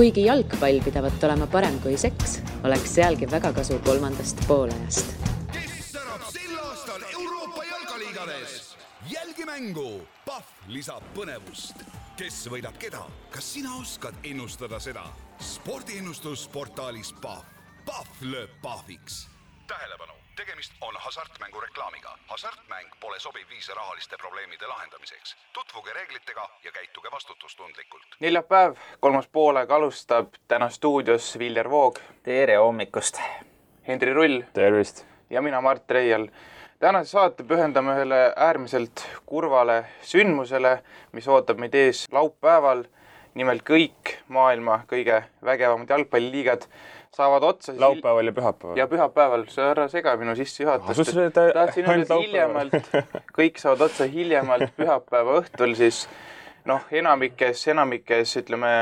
Kuigi jalgpall pidavat olema parem kui seks, oleks sealgi väga kasu kolmandast poolajast. Kes särab sel aastal Euroopa jalgaliigades? Jälgi mängu! Pahv lisab põnevust. Kes võidab keda? Kas sina oskad ennustada seda? Spordiennustus portaalis Pahv. Pahv lööb pahviks. Tähelepanu! Tegemist on hasartmängu reklaamiga. Hasartmäng pole sobiv viis rahaliste probleemide lahendamiseks. Tutvuge reeglitega ja käituge vastutustundlikult. Neljapäev, 3. poolega alustab täna stuudios Viljar Voog. Tere hommikust. Henri Rull. Tervist. Ja mina Mart Reial. Tänase saate pühendame ühele äärmiselt kurvale sündmusele, mis ootab meid ees laupäeval. Nimelt kõik maailma kõige vägevamad jalgpalliliigad saavad otsa. Laupäeval ja pühapäeval. Ja pühapäeval. See ära sega minu sissejuhatust. Tahtsin öelda hiljemalt. Kõik saavad otsa hiljemalt pühapäeva õhtul. Siis enamikes ütleme,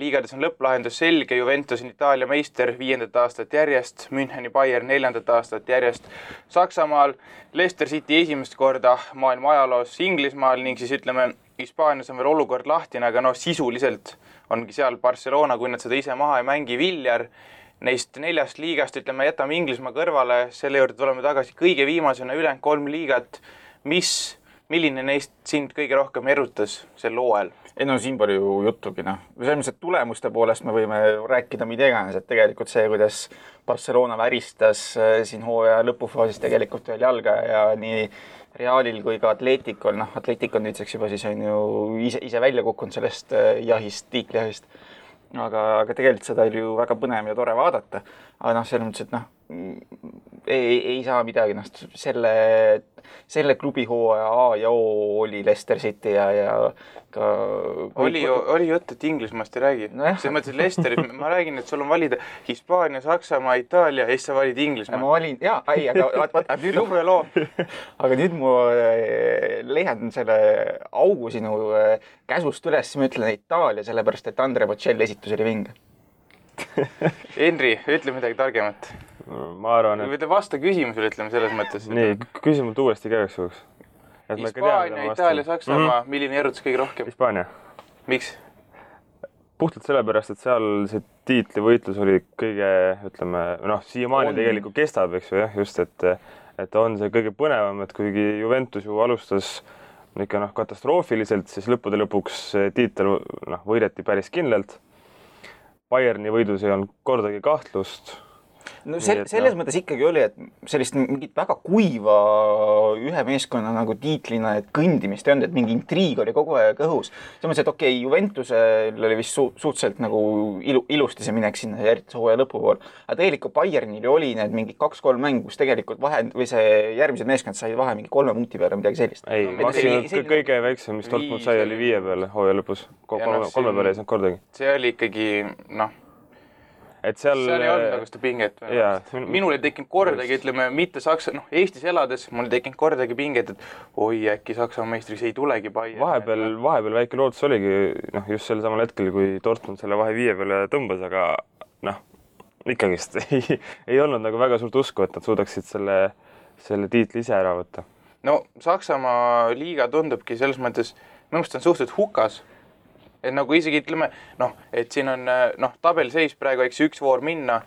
liigades on lõpplahendus selge. Juventus on Itaalia meister 5. aastat järjest. Müncheni Bayern 4. aastat järjest. Saksamaal Leicester City esimest korda maailma ajaloos Inglismaal ning siis ütleme, Hispaanias on veel olukord lahtine, aga sisuliselt ongi seal Barcelona, kui nad seda ise maha ei mängi. Viljar neist 4 liigast, ütleme, jätame Inglismaa kõrvale, selle juurde tuleme tagasi kõige viimasena ülejäänud 3 liigat. Milline neist sind kõige rohkem erutas sel hooajal? Siin palju juttugi. Selles tulemuste poolest me võime rääkida mida iganes, et tegelikult see, kuidas Barcelona väristas siin hooaja lõpufaasis tegelikult veel jalga ja nii Realil kui ka Atleticol. Atletic on nüüdseks juba siis on ju ise välja kukkunud sellest tiiklihahist. Aga tegelikult seda oli ju väga põnev ja tore vaadata. Aga selles mõttes, et ei saa midagi. Selle klubi hooaja A ja O oli Leicester City ja ka... Oli jutt, et Inglismaast ei räägi. Selles mõttes, et Leicester, ma räägin, et sul on valida Hispaania, Saksamaa, Itaalia ja siis sa valid Inglismaa. Ma valin, aga nüüd mu leian selle augu sinu käsust üles, ma ütlen Itaalia, sellepärast, et Andre Bocelli esitus oli vinge. Henri, ütle midagi targemat. Ma arvan, et... Või vasta küsimusele, ütleme selles mõttes. Nii, küsimult uuesti käiks juhuks. Hispaania, Itaalia, Saksamaa, milline erutus kõige rohkem? Hispaania. Miks? Puhtalt sellepärast, et seal see tiitlivõitlus oli kõige, ütleme, siiamaani tegelikult kestab, eks ju, just, et on see kõige põnevam, et kuigi Juventus ju alustas ikka katastroofiliselt, siis lõppude lõpuks tiitel võideti päris kindlalt. Bayerni võidus ei olnud kordagi kahtlust. Selles mõttes ikkagi oli, et sellist mingit väga kuiva ühe meeskonna nagu tiitlina kõndimist ei olnud, et mingi intriig oli kogu aeg õhus. Selles mõttes, et okei, Juventusel oli vist suhteliselt nagu ilusti see minek sinna järgmise hooaja lõpupool. Aga tegelikult Bayernil oli need mingi 2-3 mängu, kus tegelikult või see järgmised meeskond sai vahe mingi 3 punkti peale midagi sellist. Ei, maksimum kõige väiksem, mis Dortmund sai, oli 5 peale hooaja lõpus. 3 peale ei saanud kordagi. See oli ikkagi, et seal ei olnud nagu seda pinget. Minul ei tekkinud kordagi, ütleme, mitte Saksa, Eestis elades, mul ei tekkinud kordagi pinget, et oi, äkki Saksa meistriks ei tulegi Bayern. Vahepeal väike lootus oligi, just sel samal hetkel, kui Dortmund selle vahe 5 peale tõmbas, aga ikkagist ei olnud nagu väga suurt usku, et nad suudaksid selle tiitli ise ära võtta. Saksamaa liiga tundubki selles mõttes, minu meelest on suhteliselt hukas. Et nagu isegi ütleme, et siin on tabelseis praegu, eks 1 voor minna,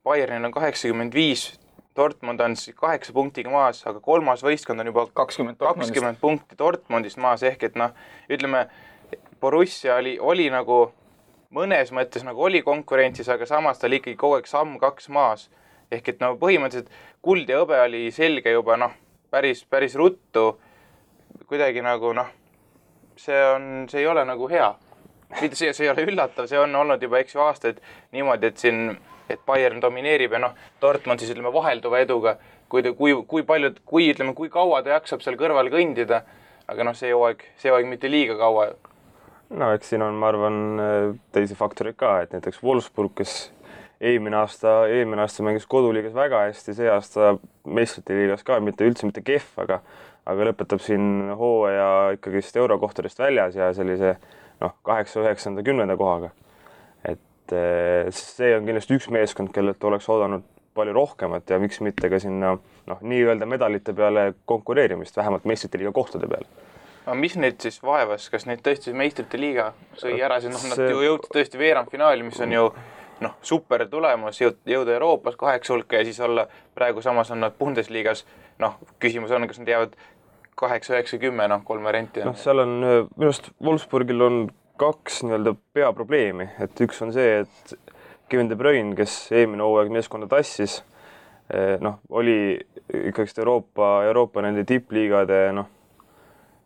Bayernil on 85, Dortmund on 8 punktiga maas, aga 3. võistkond on juba 20 punkti Dortmundist maas, ehk et ütleme, Borussia oli nagu mõnes mõttes nagu oli konkurentsis, aga samas ta oli ikkagi kogu aeg samm 2 maas. Ehk et põhimõtteliselt kuld ja hõbe oli selge juba päris ruttu, kuidagi nagu see ei ole nagu hea. See ei ole üllatav, see on olnud juba aastaid niimoodi, et Bayern domineerib ja Dortmund siis ütleme vahelduva eduga, kui kaua ta jaksab seal kõrval kõndida, aga see hooaeg mitte liiga kaua. Eks siin on, ma arvan, teisi faktoreid ka, et näiteks Wolfsburg, kes eelmine aasta mängis koduliigas väga hästi, see aasta meistrite liigas ka, mitte kehv, aga lõpetab siin hooaja ikkagi eurokohtadest väljas ja sellise 8, 9, 10 kohaga. Et see on kindlasti üks meeskond, kellelt oleks oodanud palju rohkemat ja miks mitte ka sinna nii-öelda medalite peale konkureerimist, vähemalt meistrite liiga kohtade peale. aga mis neid siis vaevas, kas neid tõesti meistrite liiga sõi ära, sest nad ju jõudsid tõesti veerandfinaali, mis on ju super tulemus, jõuda Euroopas 8 hulka ja siis olla praegu samas on nad Bundesliigas, küsimus on, kas nad jäävad 8, 9, 10, 3 varianti. Seal on, minust Wolfsburgil on 2 nii-öelda peaprobleemi, et üks on see, et Kevin De Bruyne, kes eelmine hooaeg meeskonda tassis, oli ikkagi Euroopa nende tippliigade,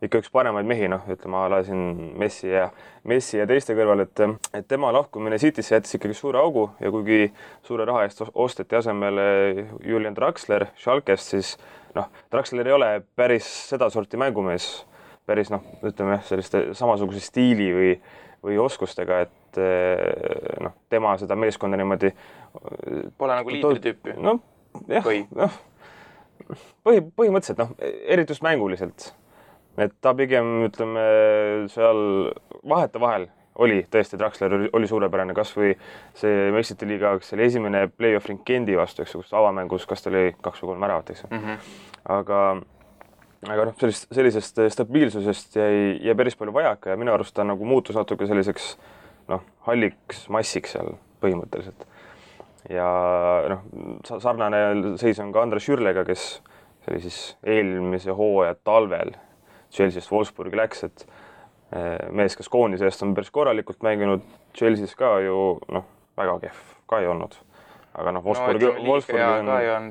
ikka üks paremaid mehi, ütleme, ala siin Messi ja teiste kõrval, et tema lahkumine Citysse jättis ikkagi suure augu ja kuigi suure raha eest osteti asemele Julian Draxler Schalkest, siis Draxler ei ole päris seda sorti mängumees, päris ütleme selliste samasuguse stiili või oskustega, et tema seda meeskonda niimoodi pole nagu liidritüüpi. Põhimõtteliselt, eriti just mänguliselt. Et ta pigem, ütleme, seal vahetevahel oli tõesti, Draxler oli suurepärane, kas või see meistrite liiga, see oli esimene play-off ring Gendi vastu, kus avamängus, kas ta oli 2 või 3 väravat, eks. Aga sellisest stabiilsusest jäi päris palju vajaka ja minu arust ta nagu muutus natuke selliseks halliks massiks seal põhimõtteliselt. Ja sarnane seis on ka Andres Schürrlega, kes oli siis eelmise hooaja talvel Chelsea'st Wolfsburgi läks, et mees, kes koondise eest on päris korralikult mänginud, Chelsea's ka ju väga kehv ka ei olnud. Aga Wolfsburgi on...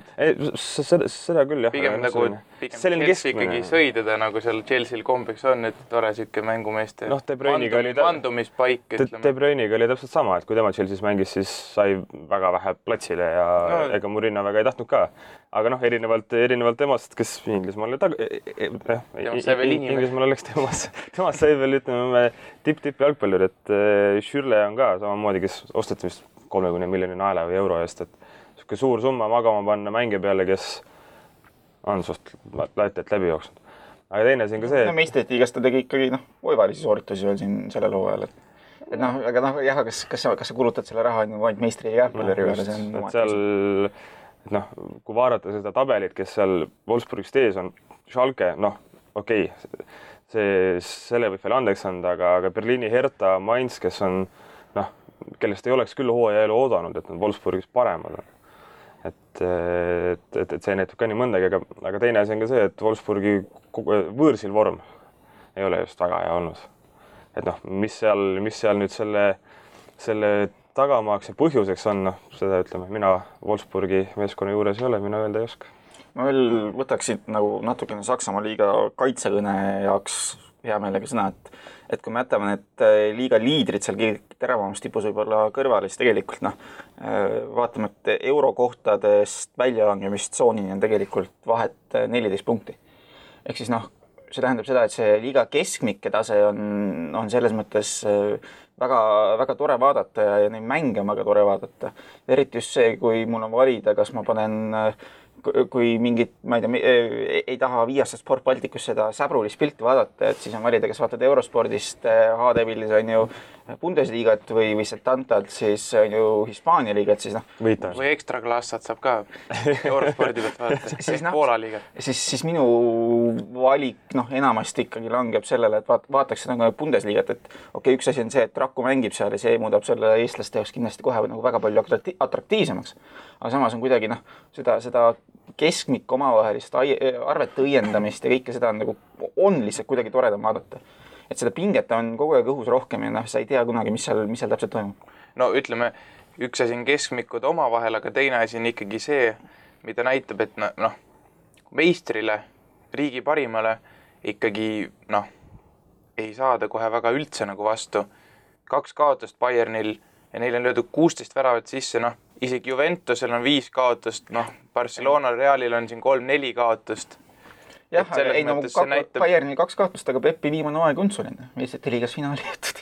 Seda küll, jah. Pigem Chelsea ikkagi sõi teda, nagu seal Chelsea'l kombeks on, et tore siuke mängumeeste mandumispaik. De Bruyniga oli täpselt sama, et kui tema Chelsea's mängis, siis sai väga vähe platsile ja ega Mourinho väga ei tahtnud ka. Aga erinevalt temast, kes Inglismaal oleks temast sai veel, ütleme, tipp jalgpallur, et Schürrle on ka samamoodi, kes osteti vist 30 miljoni naela või euro eest, et suur summa magama panna mängija peale, kes on suht laitelt läbi jooksnud. Aga teine siin ka see, et... Meistrite liigas ta tegi ikkagi oivalisi sooritusi veel siin sellel hooajal, aga kas sa kulutad selle raha ainult meistri ja jalgpalluri peale, see on seal, kui vaadata seda tabelit, kes seal Wolfsburgist ees on, Schalke, okei, selle võib veel andeks anda, aga Berliini Hertha, Mainz, kes on, kellest ei oleks küll hooaja elu oodanud, et nad Wolfsburgis paremad on. Et see näitab ka nii mõndagi, aga teine asi on ka see, et Wolfsburgi võõrsil vorm ei ole just väga hea olnud. Et mis seal nüüd selle tagamaaks ja põhjuseks on, seda ütleme, mina Wolfsburgi meeskonna juures ei ole, mina öelda ei oska. Ma veel võtaksin natukene Saksamaa liiga kaitsekõne jaoks hea meelega sõna, et kui me jätame need liiga liidrid seal teravamast tipus võib-olla kõrvale, siis tegelikult vaatame, et eurokohtadest väljalangemist tsoonini on tegelikult vahet 14 punkti. Ehk siis see tähendab seda, et see liiga keskmike tase on selles mõttes väga, väga tore vaadata ja neid mänge on väga tore vaadata. Eriti just see, kui mul on valida, kas ma panen kui mingit, ma ei tea, ei taha viiasta Sport Balticus seda säbrulist pilti vaadata, et siis on valida, kas vaatad Eurospordist HD-pillis on ju Bundesliigat või Setantalt, siis on ju Hispaania liigat, siis või ekstra klassat saab ka Eurospordi pealt vaadata, siis Poola liigat. Siis minu valik enamasti ikkagi langeb sellele, et vaataks seda Bundesligat, et okei, üks asi on see, et Raku mängib seal ja see muudab selle eestlaste jaoks kindlasti kohe väga palju atraktiivsemaks. Aga samas on kuidagi seda keskmikku omavahelist arvete õiendamist ja kõike seda on lihtsalt kuidagi toredam vaadata. Et seda pinget on kogu aeg õhus rohkem ja sa ei tea kunagi, mis seal täpselt toimub. No ütleme, üks asi on keskmikud omavahel, aga teine asi on ikkagi see, mida näitab, et meistrile, riigi parimale ikkagi ei saada kohe väga üldse vastu. 2 kaotust Bayernil ja neil on löödud 16 väravat sisse, isegi Juventusel on 5 kaotust, Barcelona Realil on siin 3-4 kaotust. Jah, Bayernil 2 kaotust, aga Peppi viimane aeg on suline. Meistrite liigas finaali jättud.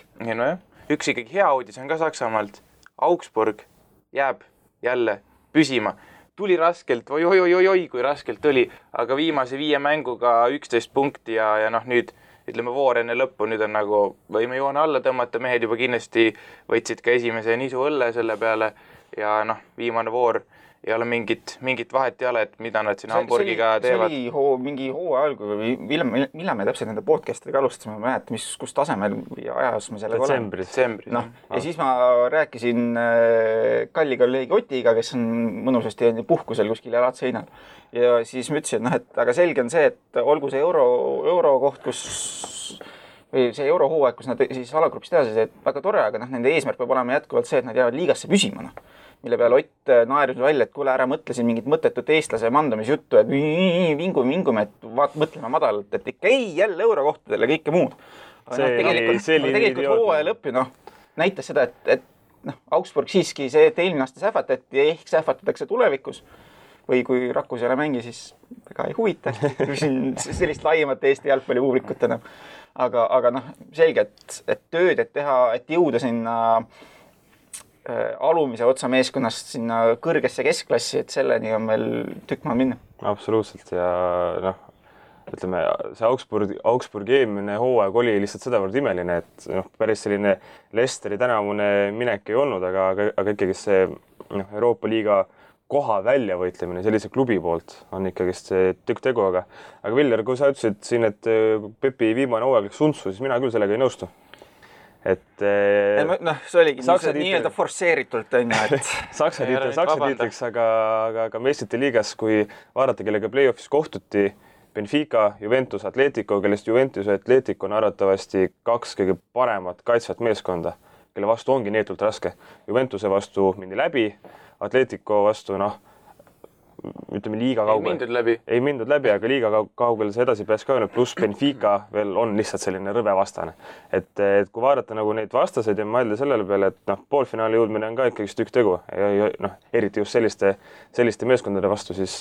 Üks ikkagi hea uudis on ka Saksamaalt. Augsburg jääb jälle püsima. Tuli raskelt, oi, kui raskelt tuli, aga viimase 5 mänguga 11 punkti ja nüüd ütleme voor enne lõppu, nüüd on võime joone alla tõmmata, mehed juba kindlasti võtsid ka esimese nisu õlle selle peale ja viimane voor ei ole mingit vahet ei ole, et mida nad siin Hamburgiga teevad. See oli mingi hooaja algu või millal me täpselt nende podcastidega alustasime, ma mäletan, kus tasemel või ajas me sellega oleme. Detsembris. Noh, ja siis ma rääkisin kalli kolleegi Otiga, kes on mõnusasti puhkusel kuskil jalad seinal. Ja siis ma ütlesin, et aga selge on see, et olgu see euro koht, või see eurohooaeg, kus nad siis alagrupis teha, et väga tore, aga nende eesmärk peab olema jätkuvalt see, et nad jäävad liigasse püsima. Mille peale Ott naeris välja, et kuule, ära mõtle siin mingit mõttetut eestlase mandumisjuttu, et vingume, et mõtleme madalalt, et ikka ei jälle eurokohtadele kõike muud. Tegelikult hooaja lõppi näitas seda, et Augsburg siiski see, et eelmine aasta sähvatati ja ehk sähvatatakse tulevikus või kui Rakus ei ole mängi, siis väga ei huvita. Küsin sellist laiemat Eesti jalgpallipublikut enam. Aga selge, et tööd, et teha, et jõuda sinna alumise otsa meeskonnast sinna kõrgesse keskklassi, et selleni on meil tükk maad minna. Absoluutselt ja ütleme, see Augsburgi eelmine hooaeg oli lihtsalt sedavõrd imeline, et päris selline Leicesteri tänavune minek ei olnud, aga ikkagi see Euroopa liiga koha välja võitlemine sellise klubi poolt on ikkagi see tükk tegu, aga Viljar, kui sa ütlesid siin, et Pepi viimane hooaeg läks untsu, siis mina küll sellega ei nõustu. See oligi nii-öelda forsseeritult on ju, et Saksa tiitriks, aga meistrite liigas, kui vaadata, kellega play-offis kohtuti, Benfica, Juventus, Atletico, kellest Juventus ja Atletico on arvatavasti 2 kõige paremat kaitsvat meeskonda, kelle vastu ongi neetult raske. Juventuse vastu mindi läbi, Atletico vastu, ütleme liiga kaugel. Ei mindud läbi, aga liiga kaugel see edasi pääs ka öelnud, pluss Benfica veel on lihtsalt selline rõve vastane. Et kui vaadata neid vastaseid ja mõelda sellele peale, et poolfinaali jõudmine on ka ikkagi tükk tegu. Eriti just selliste meeskondade vastu, siis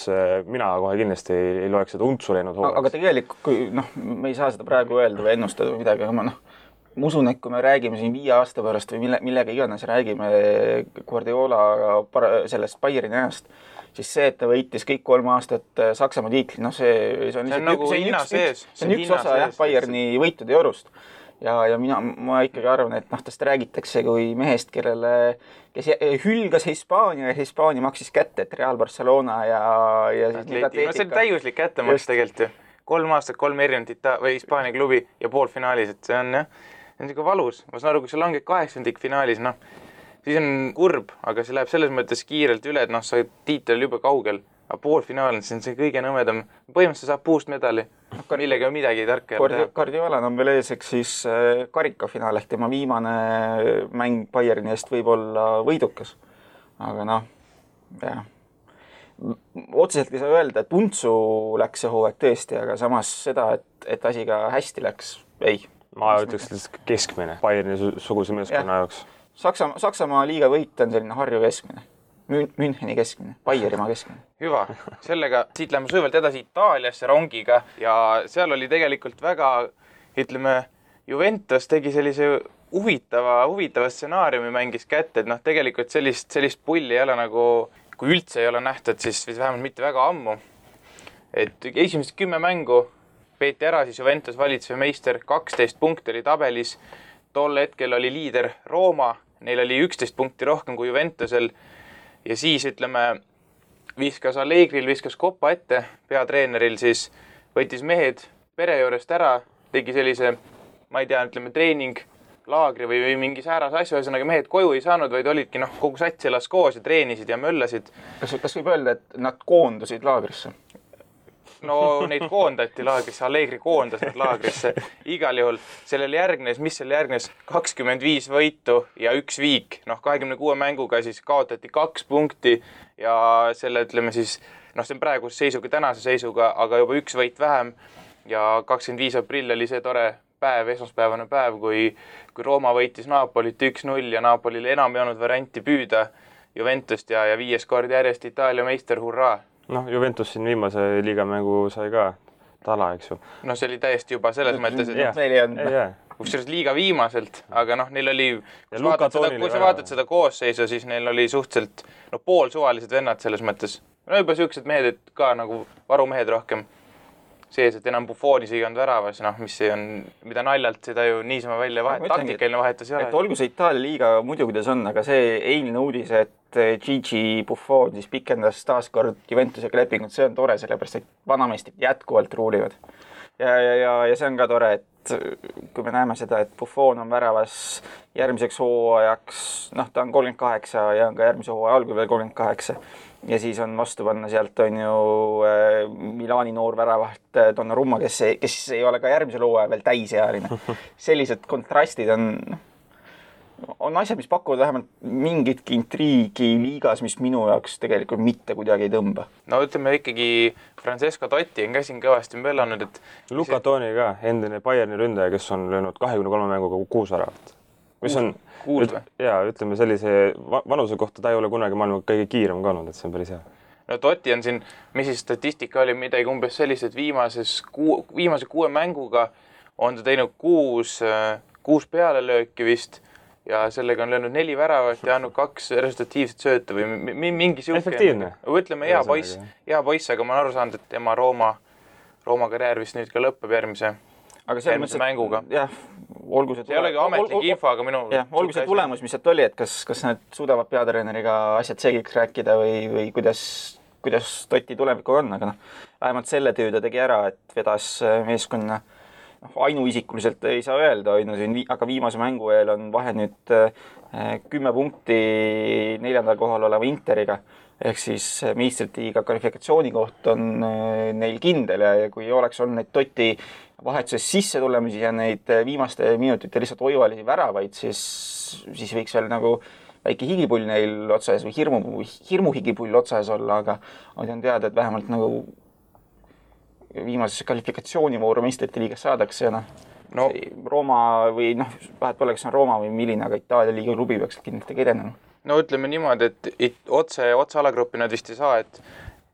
mina kohe kindlasti ei loeks seda untsu läinud hooajaks. Aga tegelikult, kui me ei saa seda praegu öelda või ennustada või midagi, aga ma usun, et kui me räägime siin 5 aasta pärast või millega iganes räägime Guardiola sellest Bayerni ajast, siis see, et ta võitis kõik 3 aastat Saksamaa tiitli, see on üks osa Bayerni võitude jorust. Ja ma ikkagi arvan, et tast räägitakse kui mehest, kes hülgas Hispaania ja Hispaania maksis kätte, et Real Barcelona ja Atletica. See on täiuslik kättemaks tegelikult ju. 3 aastat, 3 erinevat Hispaania klubi ja poolfinaalis, et see on niisugune valus. Ma saan aru, kui sa langed 8. finaalis, siis on kurb, aga see läheb selles mõttes kiirelt üle, et sa tiitel juba kaugel. Aga poolfinaal on see kõige nõmedam. Põhimõtteliselt saab puust medali. Millega on midagi tarka teha. Guardiola on veel eeseks siis karikafinaal ehk tema viimane mäng Bayerni eest võib olla võidukas. Aga otseselt ei saa öelda, et untsu läks see hooaeg tõesti, aga samas seda, et asi ka hästi läks, ei. Ma ütleks keskmine Bayerni suguse meeskonna jaoks. Saksamaa liiga võit on selline Harju keskmine, Müncheni keskmine, Bayerimaa keskmine. Hüva, sellega siit läheme sujuvalt edasi Itaaliasse rongiga ja seal oli tegelikult väga, ütleme, Juventus tegi sellise huvitava stsenaariumi mängis kätte, et tegelikult sellist pulli ei ole kui üldse ei ole nähtud, siis vähemalt mitte väga ammu. Et esimesed 10 mängu peeti ära, siis Juventus valitsev meister 12 punkti oli tabelis. Tol hetkel oli liider Rooma, neil oli 11 punkti rohkem kui Juventusel. Ja siis, viskas Allegril, viskas Koppa ette, peatreeneril siis võttis mehed pere juurest ära, tegi sellise, ma ei tea, treening, laagri või mingi sääras asju, ühesõnaga mehed koju ei saanud, vaid olidki kogu sats elas koos ja treenisid ja möllasid. Kas võib öelda, et nad koondusid laagrisse? No neid koondati laagrisse, Allegri koondas nad laagrisse. Igal juhul sellel järgnes, 25 võitu ja 1 viik. 26 mänguga siis kaotati 2 punkti ja selle siis, see on praeguse seisuga, tänase seisuga, aga juba 1 võit vähem ja 25 aprill oli see tore päev, esmaspäevane päev, kui Rooma võitis Napolit 1-0 ja Napolil enam ei olnud varianti püüda Juventust ja 5 kord järjest Itaalia meister, hurraa! Juventus siin viimase liigamängu sai ka tala, eks ju. See oli täiesti juba selles mõttes, et kusjuures liiga viimaselt, aga neil oli, kui sa vaatad seda koosseisu, siis neil oli suhteliselt poolsuvalised vennad selles mõttes. Juba siuksed mehed, et ka varumehed rohkem. sees, et enam Buffonis ei olnud väravas, noh, mis see on, mida naljalt seda ju niisama välja taktikaline vahetus ei ole. Et olgu see Itaalia liiga muidu, kuidas on, aga see eilne uudis, et Gigi Buffon siis pikendas taaskord Juventusega lepingut, see on tore, sellepärast et vanameistrid jätkuvalt ruulivad. Ja see on ka tore, et kui me näeme seda, et Buffon on väravas järgmiseks hooajaks, noh, ta on 38 ja on ka järgmise hooaja algul veel 38 ja siis on vastu panna sealt on ju Milani noor väravaht Donnarumma, kes ei ole ka järgmisel hooajal veel täisealine. Sellised kontrastid on asjad, mis pakuvad vähemalt mingitki intriigi liigas, mis minu jaoks tegelikult mitte kuidagi ei tõmba. No ütleme ikkagi Francesco Totti on käsin kõvasti möllanud, et Luka Toni ka, endine Bayerni ründaja, kes on löönud 23 mänguga 6 väravat. Mis on, ütleme sellise vanuse kohta ta ei ole kunagi maailma kõige kiirem ka olnud, et see on päris hea. No Totti on siin, mis siis statistika oli midagi umbes sellised viimase 6 mänguga on ta teinud 6 pealelööki vist ja sellega on löönud 4 väravat ja andnud 2 resultatiivset sööta või mingi siuke. Efektiivne. Ütleme hea poiss, aga ma olen aru saanud, et tema Rooma karjäär vist nüüd ka lõpeb järgmise mänguga. Jah, olgu see ei olegi ametlik info, aga olgu see tulemus, mis sealt oli, et kas nad suudavad peatreeneriga asjad selgiks rääkida või kuidas Totti tulevikuga on, aga vähemalt selle töö ta tegi ära, et vedas meeskonna ainuisikuliselt ei saa öelda, aga viimase mängu eel on vahe nüüd 10 punkti 4. kohal oleva Interiga, ehk siis meistritiiga kvalifikatsiooni koht on neil kindel ja kui oleks olnud neid Totti vahetuses sisse tulemisi ja neid viimaste minutite lihtsalt oivalisi väravaid, siis võiks veel nagu väike higipull neil otsas või hirmuhigipull otsas olla, aga on teada, et vähemalt nagu viimases kvalifikatsioonivooru meistrite liigas saadakse ja Rooma või vahet pole, kas on Rooma või milline, aga Itaalia liiga klubi peaks kindlasti edenema. No ütleme niimoodi, et otse alagruppi nad vist ei saa, et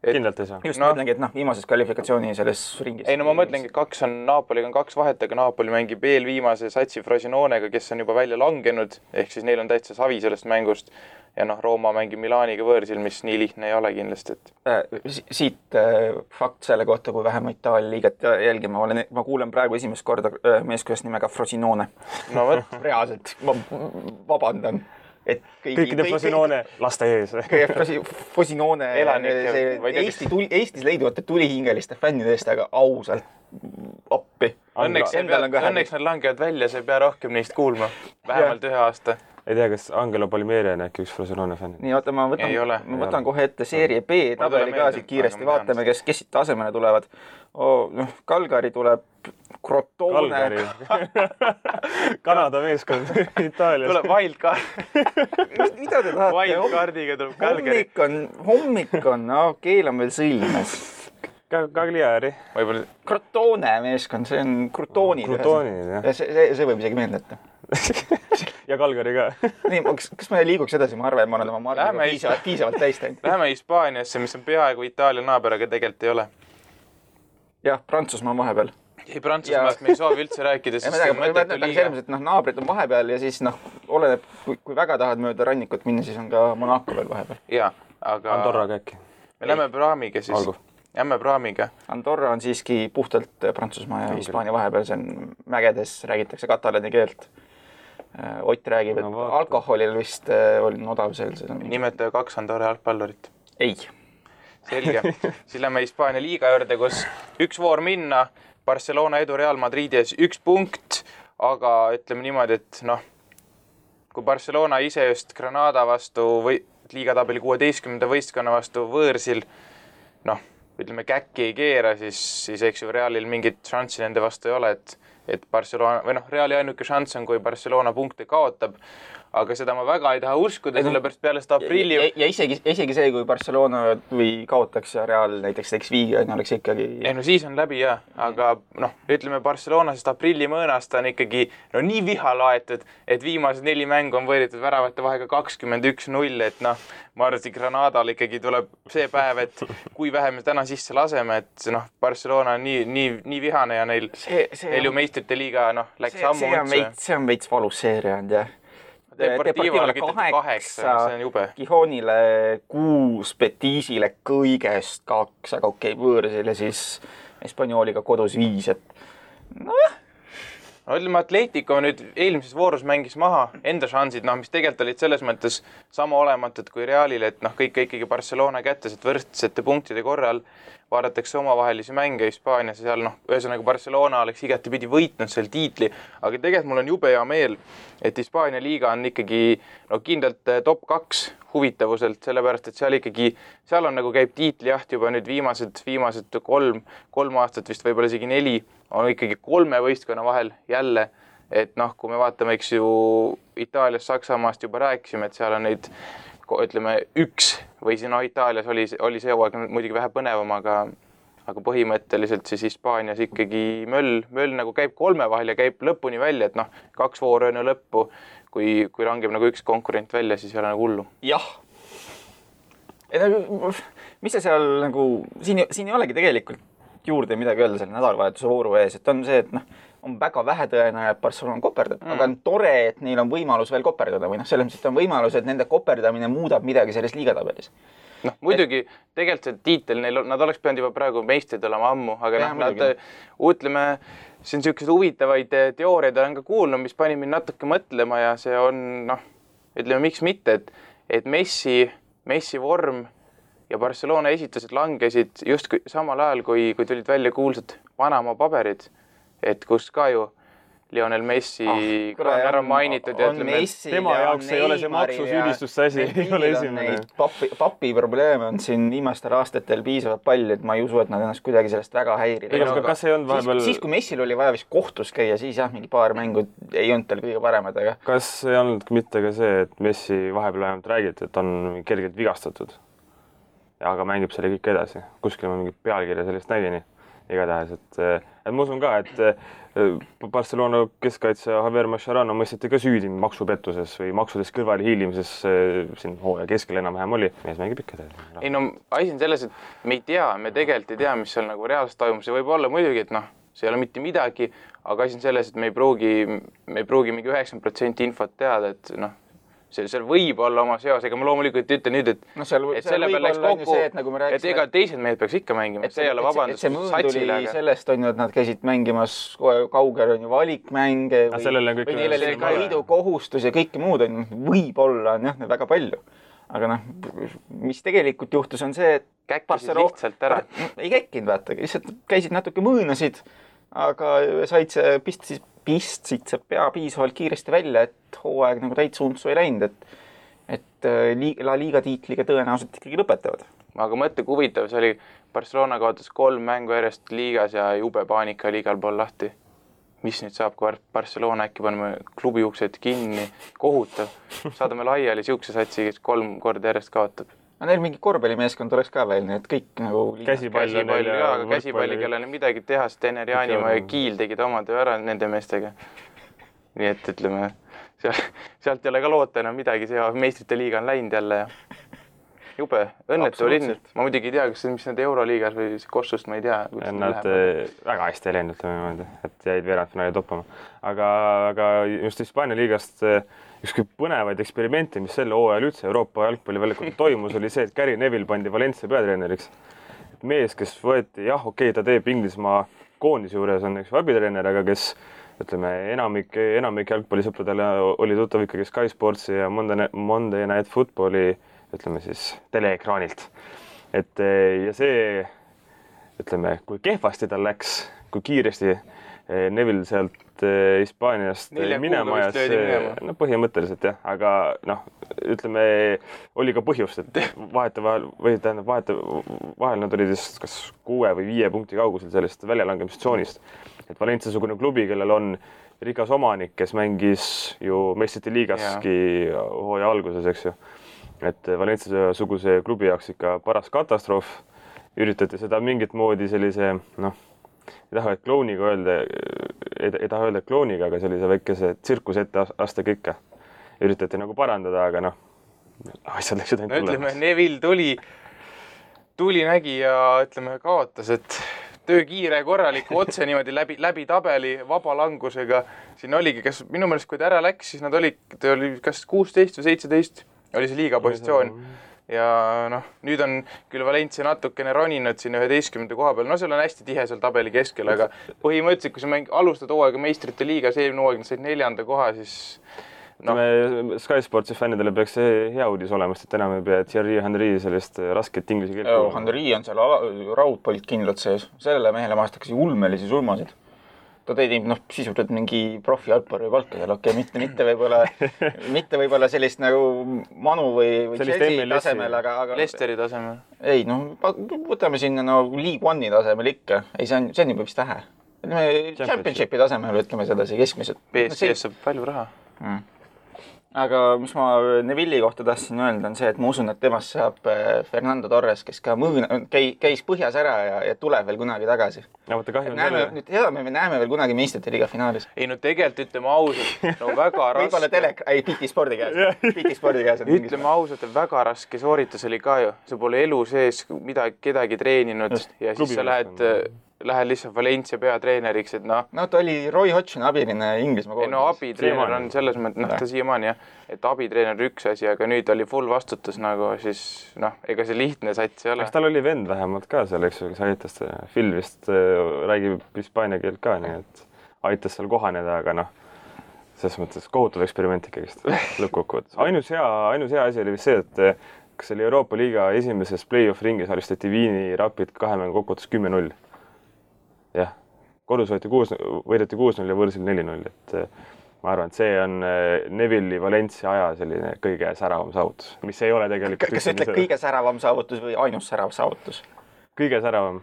kindlalt ei saa. Just mõtlengi, et viimases kvalifikatsiooni selles ringis. Ei, ma mõtlengi, et Napoliga on 2 vahet, aga Napoli mängib veel viimase satsi Frosinonega, kes on juba välja langenud, ehk siis neil on täitsa savi sellest mängust ja Rooma mängib Milaniga võõrsil, mis nii lihtne ei ole kindlasti. Siit fakt selle kohta, kui vähem Itaalia liiget jälgima. Ma kuulen praegu esimest korda meeskonnast nimega Frosinone. No võt. Reaalselt, ma vabandan. Kõikide Frosinone laste ees. Frosinone Eestis leiduvate tulihingeliste fännide eest, aga ausalt appi. Õnneks nad langevad välja, sa ei pea rohkem neist kuulma. Vähemalt 1 aasta. Ei tea, kas Angelo Palmieri on äkki üks Frosinone fänn? Nii, oota, ma võtan kohe ette seeria B tabeli ka siit kiiresti. Vaatame, kes siit asemele tulevad. Calgary tuleb Crotone. Kanada meeskond Itaalias. Tuleb Wildcard. Mida te tahate? Wildcardiga tuleb Calgary. Hommik on, keelan veel sõlmes. Cagliari. Crotone meeskond, see on Crutonid. See võib isegi meeldeta. Ja Calgary ka. Nii, kas me liiguks edasi? Ma arvan, et ma olen oma margiga piisavalt täistanud. Läheme Hispaaniasse, mis on peaaegu Itaalia naaber, aga tegelikult ei ole. Jah, Prantsusmaa vahepeal. Ei, Prantsusmaast me ei soovi üldse rääkida, sest see mõttetu liiga. Naabrid on vahepeal ja siis oleneb, kui väga tahad mööda rannikut minna, siis on ka Monaco veel vahepeal. Jaa, aga Andorraga äkki. Me lähme Praamiga siis. Jämme Praamiga. Andorra on siiski puhtalt Prantsusmaa ja Hispaania vahepeal, see on mägedes, räägitakse katalaani keelt. Ott räägib, et alkoholil vist oli odav seal. Nimetaja 2 Andorra jalgpallurit. Ei. Selge. Siis lähme Hispaania liiga juurde, kus 1 voor minna, Barcelona edu Real Madridies 1 punkt, aga ütleme niimoodi, et kui Barcelona ise just Granada vastu või liigatabeli 16. võistkonna vastu võõrsil, ütleme käkki ei keera, siis eks ju Realil mingit šanssi nende vastu ei ole, et Barcelona, või Reali ainuke šanss on, kui Barcelona punkte kaotab, aga seda ma väga ei taha uskuda, sellepärast peale seda aprilli... Ja isegi see, kui Barcelona või kaotaks ja Real näiteks teeks viigi, oleks ikkagi... Ei, siis on läbi jah, aga ütleme Barcelona sest aprilli mõõnast on ikkagi nii viha laetud, et viimased 4 mängu on võeritud väravate vahega 21-0, et ma arvan, et Granadal ikkagi tuleb see päev, et kui vähe me täna sisse laseme, et Barcelona on nii vihane ja neil ju meistrite liiga läks ammu üldse. See on veits valus seeria on, jah. Deportivole 8, see on jube. Gijonile 6, Betisile kõigest 2, aga võõrsil ja siis Hispaniooliga kodus 5, et nojah. No ütleme, Atletico nüüd eelmises voorus mängis maha enda šansid, mis tegelikult olid selles mõttes sama olematud kui Realile, et kõik ikkagi Barcelona kättes, et võrdsete punktide korral vaadatakse omavahelisi mänge Hispaanias ja seal ühesõnaga Barcelona oleks igatepidi võitnud seal tiitli, aga tegelikult mul on jube hea meel, et Hispaania liiga on ikkagi kindlalt top 2 huvitavuselt, sellepärast et seal on käib tiitlijaht juba nüüd viimased 3 aastat, vist võib-olla isegi 4, on ikkagi 3 võistkonna vahel jälle, et kui me vaatame, eks ju, Itaalias, Saksamaast juba rääkisime, et seal on neid, ütleme, 1 või siin Itaalias oli see hooaeg muidugi vähe põnevam, aga põhimõtteliselt siis Hispaanias ikkagi möll käib 3 vahel ja käib lõpuni välja, et 2 vooru enne lõppu, kui langeb 1 konkurent välja, siis ei ole hullu. Jah. Mis see seal siin ei olegi tegelikult juurde midagi öelda selle nädalavahetuse vooru ees, et on see, et on väga vähe tõenäoline, et Barcelona koperdab, aga on tore, et neil on võimalus veel koperdada või selles mõttes, et on võimalus, et nende koperdamine muudab midagi selles liigatabelis. Muidugi, tegelikult see tiitel, nad oleks pidanud juba praegu meistrid olema ammu, aga ütleme, see on sellised huvitavaid teooriaid olen ka kuulnud, mis pani mind natuke mõtlema ja see on, ütleme, miks mitte, et Messi vorm ja Barcelona esitused langesid just samal ajal, kui tulid välja kuulsad Panama paberid, et kus ka ju Lionel Messi on ära mainitud. Tema jaoks ei ole see maksusüüdistuste asi, ei ole esimene. Papi probleeme on siin viimastel aastatel piisavalt palju, et ma ei usu, et nad ennast kuidagi sellest väga häirida. Kas ei olnud vahepeal... Siis, kui Messil oli vaja vist kohtus käia, siis mingi paar mängu ei olnud tal kõige paremad. Aga... Kas ei olnud mitte ka see, et Messi vahepeal vähemalt räägiti, et on kergelt vigastatud? Aga mängib selle kõik edasi. Kuskil ma mingit pealkirja sellest nägin. Igatahes, et ma usun ka, et Barcelona keskkaitse Javier Mascherano mõisteti ka süüdi maksupettuses või maksudest kõrvale hiilimises siin hooaja keskel enam-vähem oli. Mees mängib ikka edasi. Ei asi on selles, et me tegelikult ei tea, mis seal reaalselt toimus. See võib olla muidugi, et see ei ole mitte midagi, aga asi on selles, et me ei pruugi mingi 90% infot teada, et seal võib olla oma seos, ega ma loomulikult ütlen nüüd, et selle peal läks kokku, et ega teised mehed peaks ikka mängima, see ei ole vabandus satsile. Sellest on ju, et nad käisid mängimas kaugel on ju valikmänge või neil oli ka liidu kohustus ja kõike muud on võib-olla on väga palju. Aga mis tegelikult juhtus on see, et käkkisid lihtsalt ära. Ei käkkinud, vaata, lihtsalt käisid natuke mõõnasid, aga pistsid see pea piisavalt kiiresti välja, et hooaeg täitsa untsu ei läinud, et La Liga tiitliga tõenäoliselt ikkagi lõpetavad. Aga mõtle, kui huvitav, see oli Barcelona kaotas 3 mängu järjest liigas ja jube paanika oli igal pool lahti. Mis nüüd saab, kui Barcelona äkki paneme klubi uksed kinni, kohutav. Saadame laiali siukse satsi, kes 3 korda järjest kaotab. Neil mingi korvpallimeeskond oleks ka veel, nii et kõik käsipalli, kellel midagi teha, sest Tener Jaanimaa ja Kiil tegid oma töö ära nende meestega. Nii et ütleme, sealt ei ole ka loota enam midagi, see meistrite liiga on läinud jälle ja jube, õnnetu linn. Ma muidugi ei tea, mis need Euroliigas või Kossust, ma ei tea. Nad väga hästi ei läinud, et jäid veerandfinaali toppama. Aga just Hispaania liigast ükski põnevaid eksperimente, mis selle hooajal üldse Euroopa jalgpalliväljakul toimus, oli see, et Gary Neville pandi Valencia peatreeneriks. Mees, kes võeti, ta teeb Inglismaa koondise juures, on abitreener, aga kes enamik jalgpallisõpradele oli tuttav ikkagi Sky Sportsi ja Monday Night Footballi teleekraanilt. Ja see, kui kehvasti tal läks, kui kiiresti Neville sealt Hispaaniast minema ja see, põhimõtteliselt jah, aga oli ka põhjust, et vahel nad olid kas 6 või 5 punkti kaugusel sellest väljalangemistsoonist. Et Valencia-sugune klubi, kellel on rikas omanik, kes mängis ju meistrite liigaski hooaja alguses, eks ju. Et Valencia-suguse klubi jaoks ikka paras katastroof. Üritati seda mingit moodi sellise, ei taha öelda klooniga, aga sellise väikese tsirkus ette aste kõike. Üritati parandada, aga asjad läksid ainult tulema. Neville tuli nägi ja kaotas, et töö kiire korraliku otse niimoodi läbi tabeli vaba langusega. Siin oligi, minu meelest kui ta ära läks, siis nad oli kas 16 või 17 oli see liiga positsioon. ja noh, nüüd on küll Valencia natukene roninud siin 11. koha peal, no seal on hästi tihe seal tabeli keskel, aga põhimõtteliselt, kui sa alustad hooaega meistrite liigas, eelmine hooaeg said 4. koha, siis Sky Sportsi fännidele peaks see hea uudis olema, sest enam ei pea Thierry Henry sellist rasket inglise keelt. Henry on seal raudpolt kindlalt sees. Sellele mehele maastakasi ulmelisi sulmasid. Ta teinud sisuliselt mingi profijalgpalli palka seal, mitte võib-olla sellist nagu Manu või Chelsea tasemel, aga Leicesteri tasemel. Ei, võtame sinna League One'i tasemel ikka. Ei, see on juba vist vähe. Championshipi tasemel ütleme sedasi keskmiselt. PSG saab palju raha. Aga mis ma Neville'i kohta tahtsin öelda, on see, et ma usun, et temast saab Fernando Torres, kes ka käis põhjas ära ja tuleb veel kunagi tagasi. Ja võtta kahju selle. Me näeme veel kunagi meistrite liiga finaalis. Ei, tegelikult ütleme ausalt, väga raske. Võib-olla BT Spordi käes. Ütleme ausalt, et väga raske sooritus oli ka ju. See pole elu sees kedagi treeninud ja siis sa lähed lihtsalt Valencia peatreeneriks, et ta oli Roy Hodgsoni abiline Inglismaa koondis. Abitreener on selles mõttes, ta siiamaani jah, et abitreener üks asi, aga nüüd oli full vastutus siis ega see lihtne sats ei ole. Eks tal oli vend vähemalt ka seal, eks kes aitas, Phil vist räägib hispaania keelt ka, nii et aitas seal kohaneda, aga selles mõttes kohutav eksperiment ikkagist lõppkokkuvõttes. Ainus hea asi oli vist see, et kas oli Euroopa Liiga esimeses play-off ringis alistati Viini Rapid 2 mängu kokkuvõttes 10-0. Jah, kodus võideti 6-0 ja võõrsil 4-0, et ma arvan, et see on Neville'i Valencia aja selline kõige säravam saavutus, mis ei ole tegelikult... Kas ütled kõige säravam saavutus või ainus särav saavutus? Kõige säravam.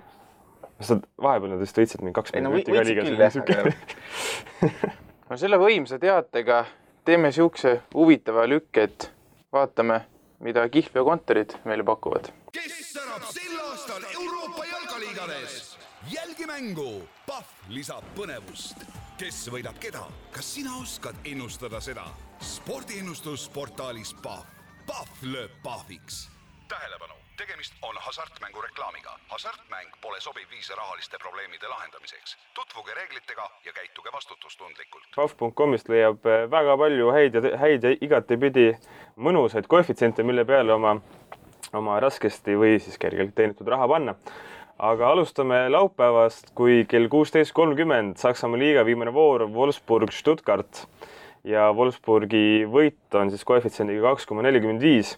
Vahepeal nad vist võitsid mingi 2 võitsid küll, jah. Selle võimsa teatega teeme siukse huvitava lükke, et vaatame, mida Kihlv ja kontorid meile pakuvad. Kes särab sel aastal Euroopa jalkaliigades? Jälgi mängu, Pahv lisab põnevust. Kes võidab keda? Kas sina oskad ennustada seda? Spordiennustusportaalis Pahv. Pahv lööb Pahviks. Tähelepanu, tegemist on hasartmängu reklaamiga. Hasartmäng pole sobiv viis rahaliste probleemide lahendamiseks. Tutvuge reeglitega ja käituge vastutustundlikult. Pahv.comist leiab väga palju häid ja igatepidi mõnusaid koefitsiente, mille peale oma raskesti või siis kergelt teenitud raha panna. Aga alustame laupäevast, kui kell 16.30 Saksamaa liiga viimane voor Wolfsburg-Stuttgart ja Wolfsburgi võit on siis koefitsiendiga 2,45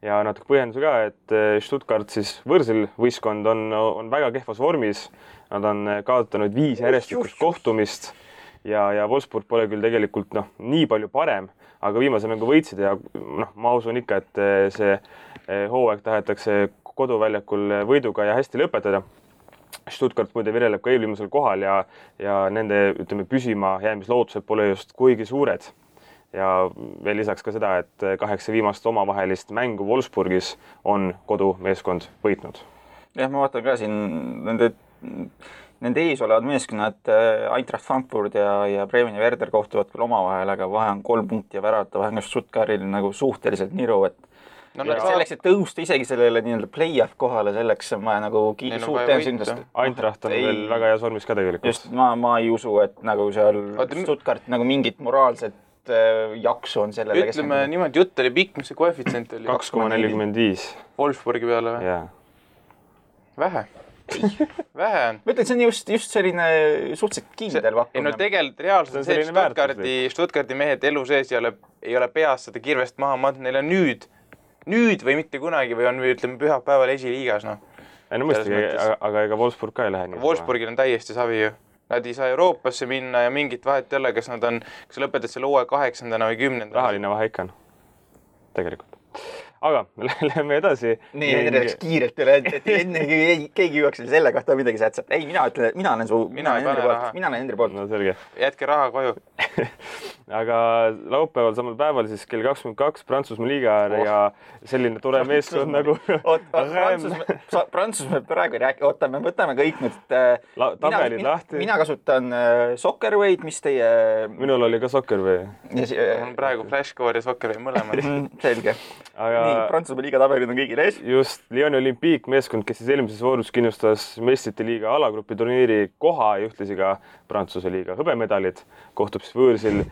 ja natuke põhjenduse ka, et Stuttgart siis võõrsil võistkond on väga kehvas vormis. Nad on kaotanud 5 järjestikust kohtumist ja Wolfsburg pole küll tegelikult nii palju parem, aga viimase mängu võitsid ja ma usun ikka, et see hooaeg tahetakse koduväljakul võiduga ja hästi lõpetada. Stuttgart muide vireleb ka eelviimasel kohal ja nende püsima jäämislootused pole just kuigi suured. Ja veel lisaks ka seda, et 8 viimast omavahelist mängu Wolfsburgis on kodumeeskond võitnud. Jah, ma vaatan ka siin nende ees olevad meeskonnad Eintracht Frankfurt ja Bremen ja Werder kohtuvad küll omavahel, aga vahe on 3 punkti ja värata vahe on Stuttgartil suhteliselt niru, et selleks, et tõusta isegi sellele play-off kohale, selleks on vaja suurt tõenäoliselt. Eintracht on veel väga heas vormis ka tegelikult. Just, ma ei usu, et seal Stuttgart mingit moraalset jaksu on sellele. Ütleme niimoodi, jutt oli pikk, mis see koefitsient oli? 2,45. Wolfsburgi peale või? Jaa. Vähe on. Ma ütlen, see on just selline suhteliselt kindel pakkumine. Tegelikult reaalselt on see, et Stuttgardi mehed elu sees ei ole peas seda kirvest maha mandnud, neil on nüüd või mitte kunagi või on, ütleme, pühapäeval esiliigas, mõistagi, aga ega Wolfsburg ka ei lähe nii. Wolfsburgil on täiesti savi ju. Nad ei saa Euroopasse minna ja mingit vahet ei ole, kas lõpetad selle uue 8. või 10. Rahaline vahe ikka on. Tegelikult. Aga läheme edasi. Nii, läks kiirelt üle, et enne keegi jõuaks selle kohta midagi sätsat. Ei, mina ütlen, et mina olen Hendri poolt. No selge. Jätke raha koju. Aga laupäeval samal päeval siis kell 22 Prantsusmaa liiga ja selline tore meeskond nagu... Prantsusmaa praegu räägi, me võtame kõik nüüd... Tabelid lahti. Mina kasutan Soccerway'd, mis teie... Minul oli ka Soccerway. On praegu Flashcore ja Soccerway mõlemad. Selge. Nii, Prantsusmaa liiga tabelid on kõigil ees. Just, Lyoni Olympique meeskond, kes siis eelmises voorus kindlustas meistrite liiga alagrupi turniiri koha ja ühtlasi ka Prantsuse liiga hõbemedalid, kohtub siis võõrsil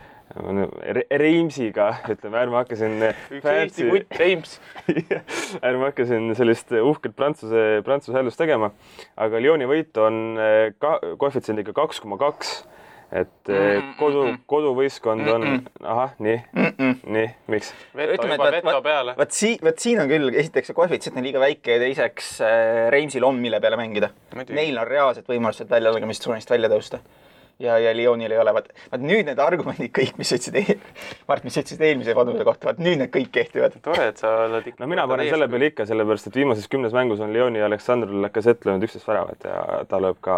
Reimsiga, ütleme, ärme hakkasin Eesti kutt Reims. ärme hakkasin sellist uhket prantsuse häälust tegema, aga Lyoni võit on koefitsiendiga 2,2, et koduvõistkond on, nii, miks? Veto peale. Vaat siin on küll, esiteks see koefitsient on liiga väike ja teiseks Reimsil on mille peale mängida. Neil on reaalselt võimalused väljalangemistsoonist välja tõusta. Ja Lyonil ei ole. Vaat nüüd need argumendid kõik, mis ütlesid eelmise vanuse kohta, vaat nüüd need kõik kehtivad. Tore, et sa oled ikka... No mina panen selle peale ikka, sellepärast, et viimases 10 mängus on Lyoni ja Aleksandr Lacazette löönud 11 väravat ja ta lööb ka,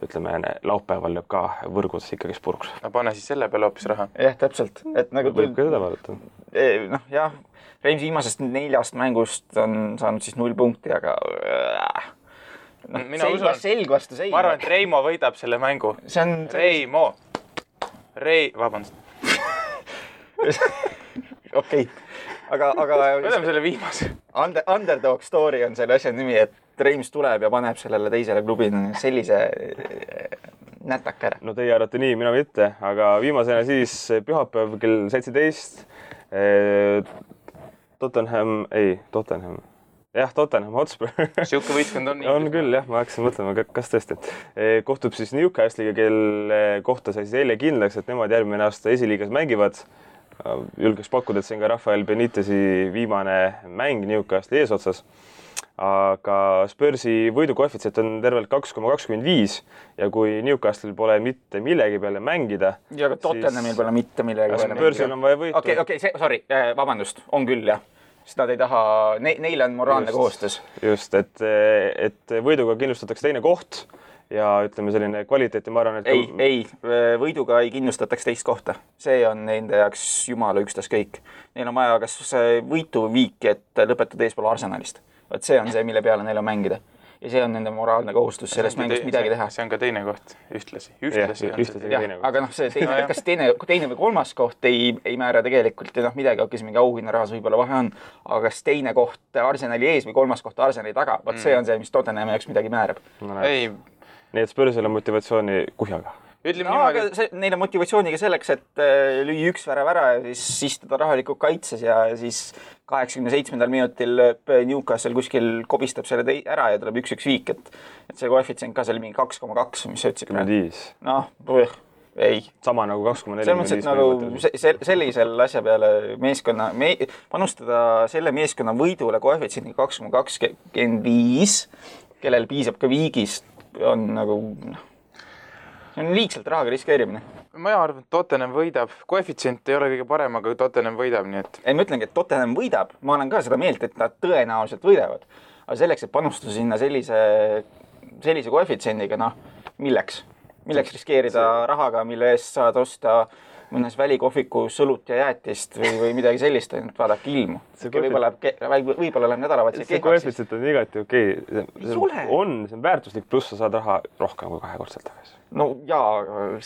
ütleme, laupäeval lööb ka võrgus ikkagi spurks. No pane siis selle peale hoopis raha. Jah, täpselt. Et nagu võib ka seda vaadata. Noh, jah, Reims viimasest 4 mängust on saanud siis 0 punkti, aga... selg vastu sein. Ma arvan, et Reimo võidab selle mängu. Reimo. Vabandust. Okei. Aga... Võidame selle viimase. Underdog story on selle asja nimi, et Reims tuleb ja paneb sellele teisele klubile sellise nätaka ära. No teie arvate nii, mina mitte, aga viimasena siis pühapäev kell 17 Tottenham Hotspur. Siuke võistkond on nii. On küll, jah, ma hakkasin mõtlema, kas tõesti. Kohtub siis Newcastle'iga, kelle kohta sai siis eile kindlaks, et nemad järgmine aasta esiliigas mängivad. Julgeks pakkuda, et see on ka Rafael Benitezi viimane mäng Newcastle'i eesotsas. Aga Spursi võidukoefitsient on tervelt 2,25 ja kui Newcastle'il pole mitte millegi peale mängida... Ja aga Tottenhamil pole mitte millegi peale mängida. Spursil on vaja võitu. Okei, vabandust, on küll, jah. Sest nad ei taha, neil on moraalne kohustus. Just, et võiduga kindlustatakse teine koht ja ütleme selline kvaliteeti, ma arvan, et... Ei, võiduga ei kindlustataks teist kohta. See on nende jaoks jumala ükstaskõik. Neil on vaja kas võitu viiki, et lõpetada eespool Arsenalist. Vaat see on see, mille peale neil on mängida. Ja see on nende moraalne kohustus sellest mängust midagi teha. See on ka teine koht, ühtlasi aga see kas teine või kolmas koht ei määra tegelikult ja midagi mingi auhinnarahas võib-olla vahe on, aga kas teine koht Arsenali ees või kolmas koht Arsenali taga, vaat see on see, mis Tottenhami jaoks midagi määrab. Nii et Spursil on motivatsiooni kuhjaga. Aga neil on motivatsiooniga selleks, et lüüa 1 värav ära ja siis istuda rahalikult kaitses ja siis 87. minutil Newcastle kuskil kobistab selle ära ja tuleb 1-1 viik, et see koefitsient ka oli mingi 2,2, mis sa ütlesid? 5. Noh, ei. Sama nagu 2,4. Selles mõttes, et nagu sellisel asja peale panustada selle meeskonna võidule koefitsiendiga 2,25, kellel piisab ka viigist, on nagu... See on liigselt rahaga riskeerimine. Ma arvan, et Tottenham võidab. Koefitsient ei ole kõige parem, aga Tottenham võidab, nii et... Ei, ma ütlengi, et Tottenham võidab. Ma olen ka seda meelt, et nad tõenäoliselt võidavad. Aga selleks, et panustada sinna sellise koefitsiendiga, milleks? Milleks riskeerida rahaga, mille eest saad osta mõnes välikohviku sõlut ja jäätist või midagi sellist, et vaadake ilmu. Võib-olla läheb nädalavahetusel kehvaks. See koefitsient on igati okei. See on väärtuslik pluss, sa saad raha rohkem kui 2-kordselt tagasi. No jaa,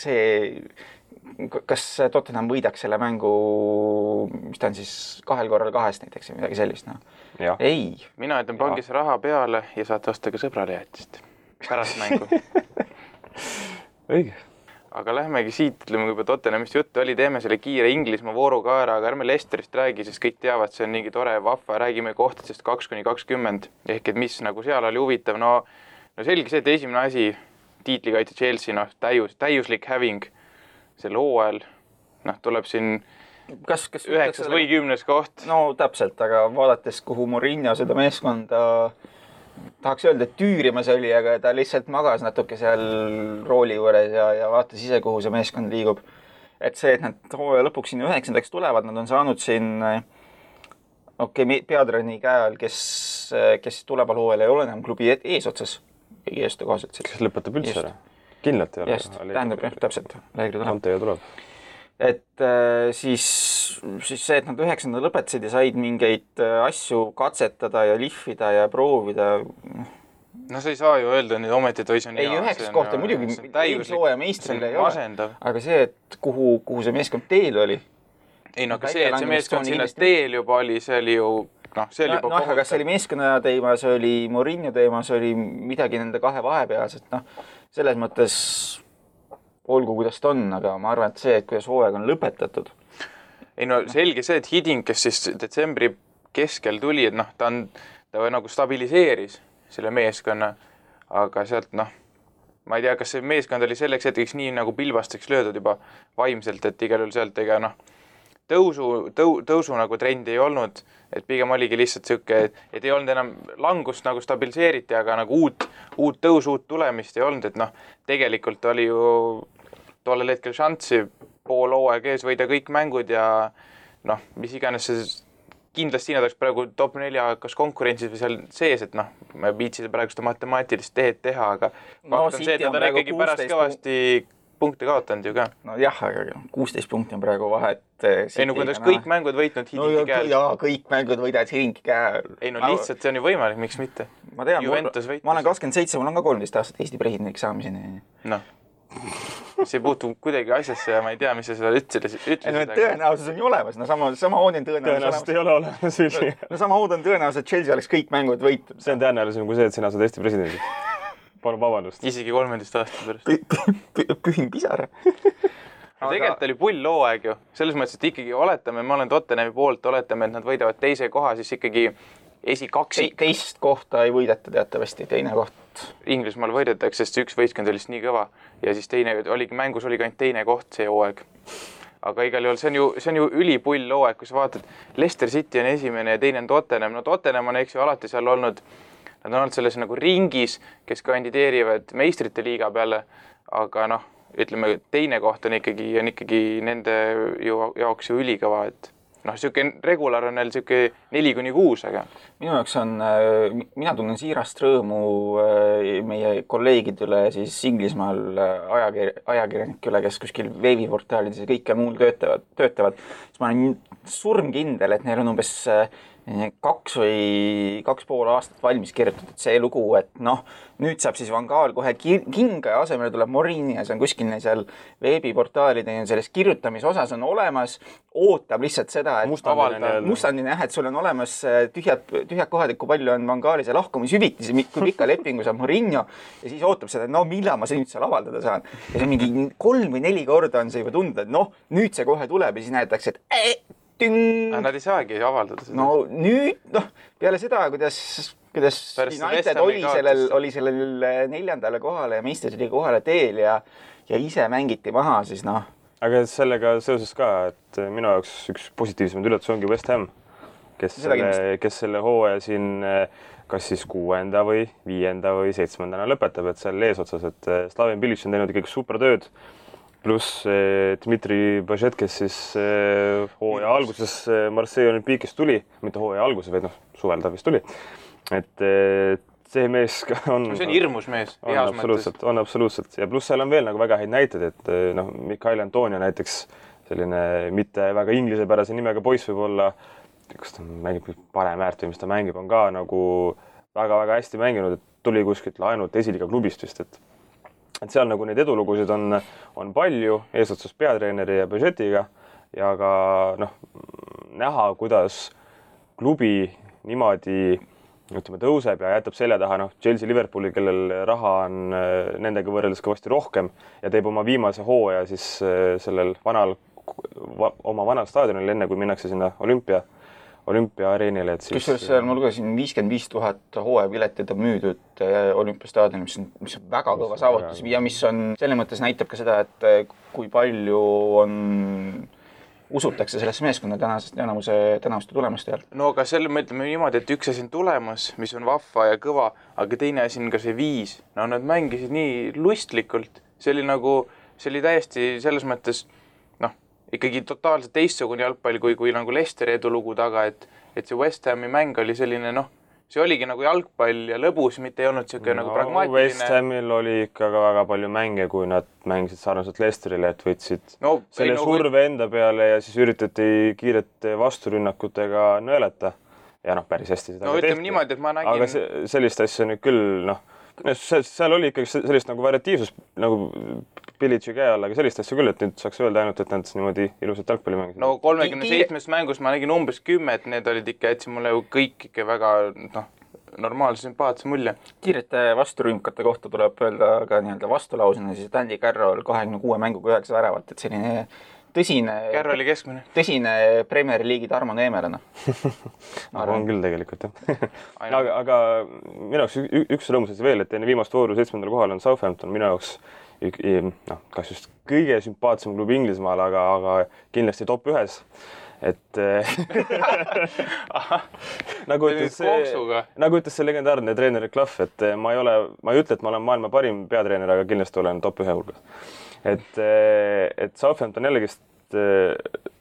kas Tottenham võidaks selle mängu, mis ta on siis 2 korral 2 näiteks või midagi sellist? No. Ei. Mina ütlen pangis raha peale ja saate osta ka sõbrale jäätist pärast mängu. Õige. Aga lähmegi siit, ütleme, kui juba Tottenhamist juttu oli, teeme selle kiire Inglismaa vooru ka ära, aga ärme Leicesterist räägi, sest kõik teavad, see on nii tore vahva, räägime kohtadest 2-20, ehk et mis nagu seal oli huvitav, no selge see, et esimene asi, tiitlikaitse Chelsea, täiuslik häving selle hooajal, tuleb siin 9. või 10. koht. No täpselt, aga vaadates, kuhu Mourinho seda meeskonda tahaks öelda, et tüürimas oli, aga ta lihtsalt magas natuke seal rooli juures ja vaatas ise, kuhu see meeskond liigub. Et see, et nad hooaja lõpuks sinna 9. tulevad, nad on saanud siin peatreeneri käe all, kes tuleval hooajal ei ole enam klubi eesotsas. Eestu kohaselt. Kes lõpetab üldse ära? Kindlalt ei ole. Tähendab, täpselt. Anteja tuleb. Et siis see, et nad 9. lõpetasid ja said mingeid asju katsetada ja lihvida ja proovida. No sa ei saa ju öelda nüüd ometi, et see on hea. Ei, 9 kohta muidugi eelslooja meistrile ei ole. Aga see, et kuhu see meeskond teel oli. Ei, aga see, et see meeskond sinna teel juba oli, see oli ju... aga see oli meeskonna teema, see oli Mourinho teema, see oli midagi nende 2 vahepealset. Selles mõttes olgu kuidas ta on, aga ma arvan, et see, et kuidas hooaeg on lõpetatud. Ei no selge see, et Hiding, kes siis detsembri keskel tuli, et ta nagu stabiliseeris selle meeskonna, aga sealt ma ei tea, kas see meeskond oli selleks hetkeks nii nagu pilbasteks löödud juba vaimselt, et igal juhul sealt ega tõusu nagu trendi ei olnud, et pigem oligi lihtsalt siuke, et ei olnud enam langust nagu stabiliseeriti, aga nagu uut tõusu, uut tulemist ei olnud, et tegelikult oli ju tollel hetkel šanssi pool hooaeg ees võida kõik mängud ja mis iganes see kindlasti nad oleks praegu top 4 kas konkurentsis või seal sees, et ma viitsin praegu seda matemaatilist tehed teha, aga fakt on see, et nad on ikkagi pärast kõvasti punkte kaotanud ju ka. No jah, aga 16 punkti on praegu vahet. Ei kui nad kõik mängud võitnud Hidingi käel. Jaa, kõik mängud võidavad Hidingi käel. Ei lihtsalt see on ju võimalik, miks mitte? Ma tean, ma olen 27, mul on ka 13 aastat Eesti presidendiks saamiseni. See ei puutu kuidagi asjasse ja ma ei tea, mis sa seda ütlesid. Tõenäosus on ju olemas, sama hood on tõenäoliselt ei ole olemas. Sama hood on tõenäoliselt, et Chelsea oleks kõik mängud võitud. See on tõenäolisem kui see, et sina saad Eesti presidendi. Palun vabandust. Isegi 13 aastat pärast. Pühin pisara. Tegelikult oli pull hooaeg ju. Selles mõttes, et ikkagi oletame, ma olen Tottenhami poolt, oletame, et nad võidavad teise koha, siis ikkagi esikaksik. Teist kohta ei võideta teatavasti, teine koht. Inglismaal võidetakse, sest üks võistkond oli nii kõva ja siis mängus oli ainult teine koht see hooaeg. Aga igal juhul see on ju ülipull hooaeg, kui sa vaatad, Leicester City on esimene ja teine on Tottenham. Tottenham on alati seal olnud, nad on olnud selles nagu ringis, kes kandideerivad meistrite liiga peale, aga ütleme, teine koht on ikkagi nende jaoks ju ülikõva, et siuke regular on neil siuke 4-6, aga minu jaoks mina tunnen siirast rõõmu meie kolleegidele siis Inglismaal ajakirjanikule, kes kuskil veebiportaalides ja kõike muul töötavad. Siis ma olen surmkindel, et neil on umbes 2 pool aastat valmis kirjutatud see lugu, et nüüd saab siis Van Gaal kohe kinga ja asemele tuleb Mourinho ja see on kuskil seal veebiportaalide selles kirjutamise osas on olemas, ootab lihtsalt seda, et mustandine jah, et sul on olemas tühjad kohad, et kui palju on Van Gaali see lahkumishüvitis, kui pikka lepingu saab Mourinho ja siis ootab seda, et millal ma nüüd seal avaldada saan. Ja see mingi 3 või 4 korda on see juba tunda, et nüüd see kohe tuleb ja siis näetakse, et Nad ei saagi avaldada seda. Nüüd, peale seda, kuidas United oli sellel 4. kohale ja meistriliiga kohale teel ja ise mängiti maha, siis Aga sellega seoses ka, et minu jaoks üks positiivsemaid üllatus ongi West Ham, kes selle hooaja siin kas siis 6. või 5. või 7. lõpetab, et seal eesotsas, et Slaven Bilic on teinud ikkagi super tööd. Pluss Dmitri Bažet, kes siis hooaja alguses Marseille Olympique'is tuli, mitte hooaja alguses, vaid suvel ta vist tuli. Et see mees on... See on hirmus mees. On absoluutselt. Ja pluss seal on veel nagu väga häid näited, et Mikael Antonio näiteks selline mitte väga inglisepärase nimega poiss võib olla, kas ta mängib parem äärt või mis ta mängib, on ka nagu väga-väga hästi mänginud, et tuli kuskilt laenult esiliiga klubist vist, et seal nagu neid edulugusid on palju, eesotsas peatreeneri ja Bažetiga ja ka näha, kuidas klubi niimoodi tõuseb ja jätab selja taha Chelsea Liverpooli, kellel raha on nendega võrreldes kõvasti rohkem ja teeb oma viimase hooaja siis sellel oma vanal staadionil, enne kui minnakse sinna olümpiaareenile. Kusjuures seal ma lugesin 55 000 hooajapiletit on müüdud olümpiastaadionil, mis on väga kõva saavutus ja mis on selles mõttes näitab ka seda, et kui palju usutakse sellesse meeskonna tänavuste tulemuste all. Aga selle me ütleme niimoodi, et üks asi on tulemus, mis on vahva ja kõva, aga teine asi on ka see viis. Nad mängisid nii lustlikult. See oli täiesti selles mõttes ikkagi totaalselt teistsugune jalgpall kui nagu Leicesteri edulugu taga, et see West Hami mäng oli selline, see oligi nagu jalgpall ja lõbus, mitte ei olnud siuke nagu pragmaatiline. West Hamil oli ikka väga palju mänge, kui nad mängisid sarnaselt Leicesterile, et võtsid selle surve enda peale ja siis üritati kiirete vasturünnakutega nõelata. Ja päris hästi seda ütleme niimoodi, et ma nägin... Aga sellist asja nüüd küll, seal oli ikkagi sellist nagu variatiivsus nagu Bilici käe all, aga sellist asja küll, et nüüd saaks öelda ainult, et nad niimoodi ilusat jalgpalli mängisid. 37 mängust ma nägin umbes 10, et need olid ikka, jätsin mulle ju kõik ikka väga normaalse sümpaatse mulje. Kiirete vasturünkate kohta tuleb öelda ka nii-öelda vastulausena siis, et Andy Carroll 26 mänguga 9 väravat, et selline Carrolli keskmine. Tõsine Premier League'i Tarmo Neemelane. on küll tegelikult, jah. aga minu jaoks üks rõõmus asi veel, et enne viimast vooru 7. kohal on Southampton minu jaoks kas just kõige sümpaatsem klubi Inglismaal, aga kindlasti top 1. Et nagu ütles see legendaarne treener Clough, et ma ei ütle, et ma olen maailma parim peatreener, aga kindlasti olen top 1 hulgas. Et Southampton jällegist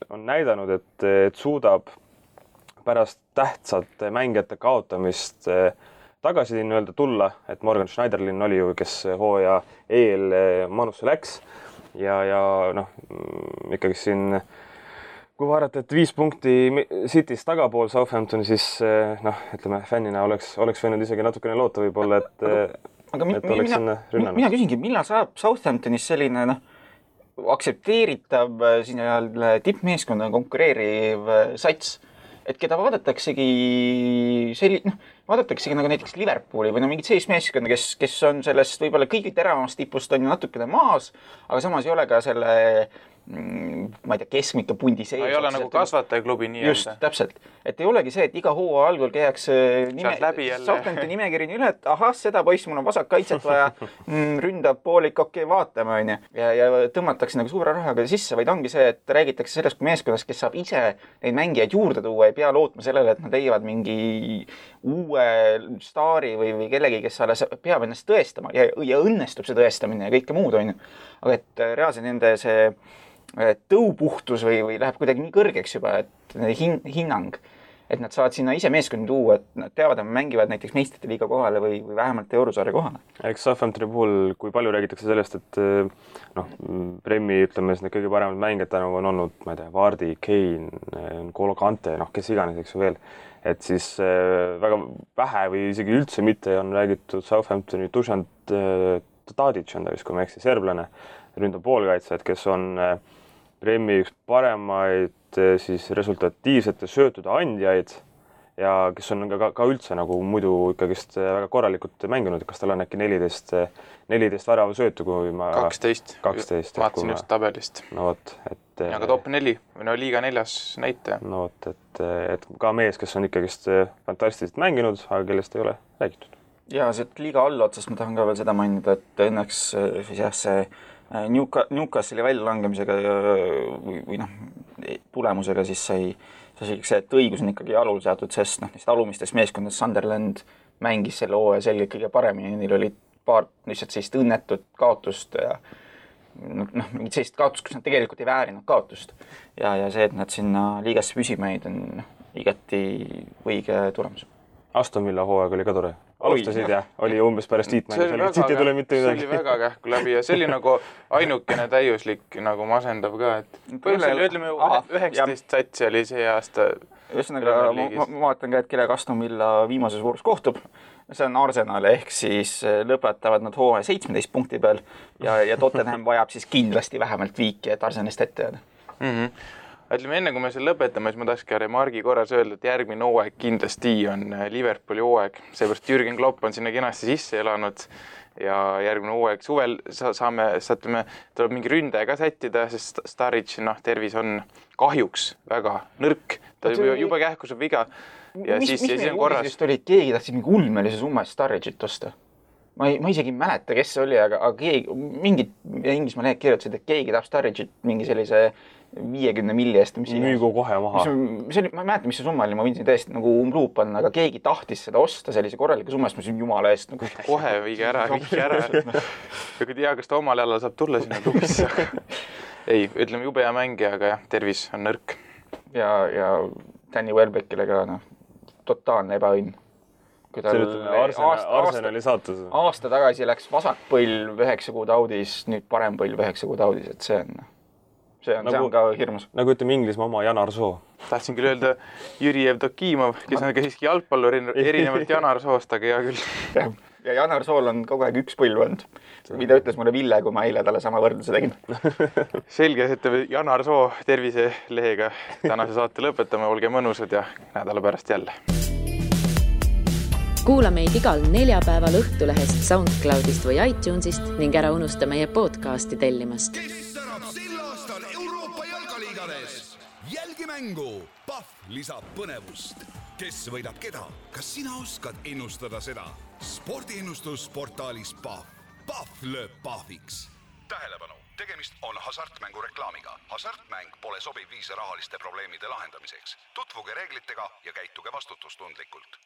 on näidanud, et suudab pärast tähtsate mängijate kaotamist tagasi nii-öelda tulla, et Morgan Schneiderlin oli ju, kes hooaja eel Manusse läks ja ikkagi siin kui vaadata, et 5 punkti City's tagapool Southamptoni, siis ütleme, fännina oleks võinud isegi natukene loota võib-olla, et oleks sinna rünnanud. Mina küsingi, millal saab Southamptonis selline aktsepteeritav tippmeeskonna konkureeriv sats, et keda vaadataksegi nagu näiteks Liverpooli või mingid sellist meeskonda, kes on sellest võib-olla kõige teravamast tipust on ju natukene maas, aga samas ei ole ka selle ma ei tea, keskmike pundi sees. Ei ole nagu kasvatajaklubi nii. Just, täpselt. Et ei olegi see, et iga hooaja algul käiakse Southamptoni nimekirjani üle, et ahah, seda poiss, mul on vasak kaitset vaja, ründab poolik, okei, vaatame, on ju. Ja tõmmatakse nagu suure rahaga sisse, vaid ongi see, et räägitakse sellest kui meeskonnast, kes saab ise neid mängijaid juurde tuua, ei pea lootma sellele, et nad leiavad mingi uue staari või kellegi, kes alles peab ennast tõestama ja õnnestub see tõestamine ja kõike muud, on ju. Aga et reaalselt nende see tõupuhtus või läheb kuidagi nii kõrgeks juba, et hinnang, et nad saavad sinna ise meeskonni tuua, et nad teavad, et mängivad näiteks meistrite liiga kohale või vähemalt eurosarja kohale. Eks Southamptoni puhul, kui palju räägitakse sellest, et Premi, ütleme, need kõige paremad mängijad tänu on olnud, ma ei tea, Vardy, Kane, N'Golo Kante, kes iganes, eks ju veel, et siis väga vähe või isegi üldse mitte on räägitud Southamptoni Dušan Tadic on ta vist, kui ma eksin, serblane, ründab poolkaitsjad, kes on Premi üks paremaid siis resultatiivsete söötude andjaid ja kes on ka üldse nagu muidu ikkagist väga korralikult mänginud, kas tal on äkki 14 värava söötu, kui ma 12. Vaatasin just tabelist. No võt, et aga top 4 või liiga 4. näitaja. No võt, et ka mees, kes on ikkagist fantastiliselt mänginud, aga kellest ei ole räägitud. Ja see liiga allotsast ma tahan ka veel seda mainida, et õnneks see Newcastle'i väljalangemisega või tulemusega siis sai see, et õigus on ikkagi jalul seatud, sest neist alumistes meeskondades Sunderland mängis selle hooaja selgelt kõige paremini, neil oli paar lihtsalt sellist õnnetut kaotust ja mingit sellist kaotust, kus nad tegelikult ei väärinud kaotust. Ja see, et nad sinna liigasse püsima jäid, on igati õige tulemus. Aston Villa hooaeg oli ka tore. Alustasid ja oli umbes pärast tiitmängu. See oli väga kähku läbi ja see oli nagu ainukene täiuslik nagu masendav ka, et ütleme 19 satsi oli see aasta. Ühesõnaga, ma vaatan ka, et kellega Aston Villa viimases voorus kohtub. See on Arsenal, ehk siis lõpetavad nad hooaja 17 punkti peal ja Tottenham vajab siis kindlasti vähemalt viiki, et Arsenalist ette jääda. Ütleme, enne kui me selle lõpetame, siis ma tahaks ka remargi korras öelda, et järgmine hooaeg kindlasti on Liverpooli hooaeg. Seepärast Jürgen Klopp on sinna kenasti sisse elanud ja järgmine hooaeg suvel tuleb mingi ründaja ka sättida, sest Sturridge tervis on kahjuks väga nõrk. Ta juba kähkuseb viga ja siis on korras. Mis meil keegi tahtsid mingi ulmelise summa Sturridge'it osta? Ma isegi ei mäleta, kes see oli, aga keegi, mingid Inglismaa lehed kirjutasid, et keegi tahab Sturridge'it mingi sellise 50 milli eest. Müügu kohe maha. Ma ei mäleta, mis see summa oli, ma võin siin tõesti nagu umbluup on, aga keegi tahtis seda osta sellise korraliku summa eest, ma siin jumala eest. Kohe viige ära. Ja kui tea, kas ta omal jälle saab tulla sinna klubisse. Ei, ütleme jube hea mängija, aga jah, tervis on nõrk. Ja Danny Welbeckile ka totaalne ebaõnn. Arsenali saatus. Aasta tagasi läks vasak põlv 9 kuud audis, nüüd parem põlv 9 kuud audis, et see on ka hirmus. Nagu ütleme Inglismaa oma Janar Soo. Tahtsin küll öelda Jüri Evdokimov, kes on ka siiski jalgpallur erinevalt Janar Soost, aga hea küll. Ja Janar Sool on kogu aeg üks põlv olnud, mida ütles mulle Ville, kui ma eile talle sama võrdluse tegin. Selge, et Janar Soo terviselehega tänase saate lõpetame, olge mõnusad ja nädala pärast jälle. kuula meid igal neljapäeval Õhtulehest, SoundCloudist või iTunesist ning ära unusta meie podcasti tellimast. Kes särab sel aastal Euroopa jalkaliigades? Jälgi mängu, Pahv lisab põnevust. Kes võidab keda? Kas sina oskad ennustada seda? Spordiennustusportaalis Pahv. Pahv lööb pahviks. Tähelepanu! Tegemist on hasartmängu reklaamiga. Hasartmäng pole sobiv viis rahaliste probleemide lahendamiseks. Tutvuge reeglitega ja käituge vastutustundlikult.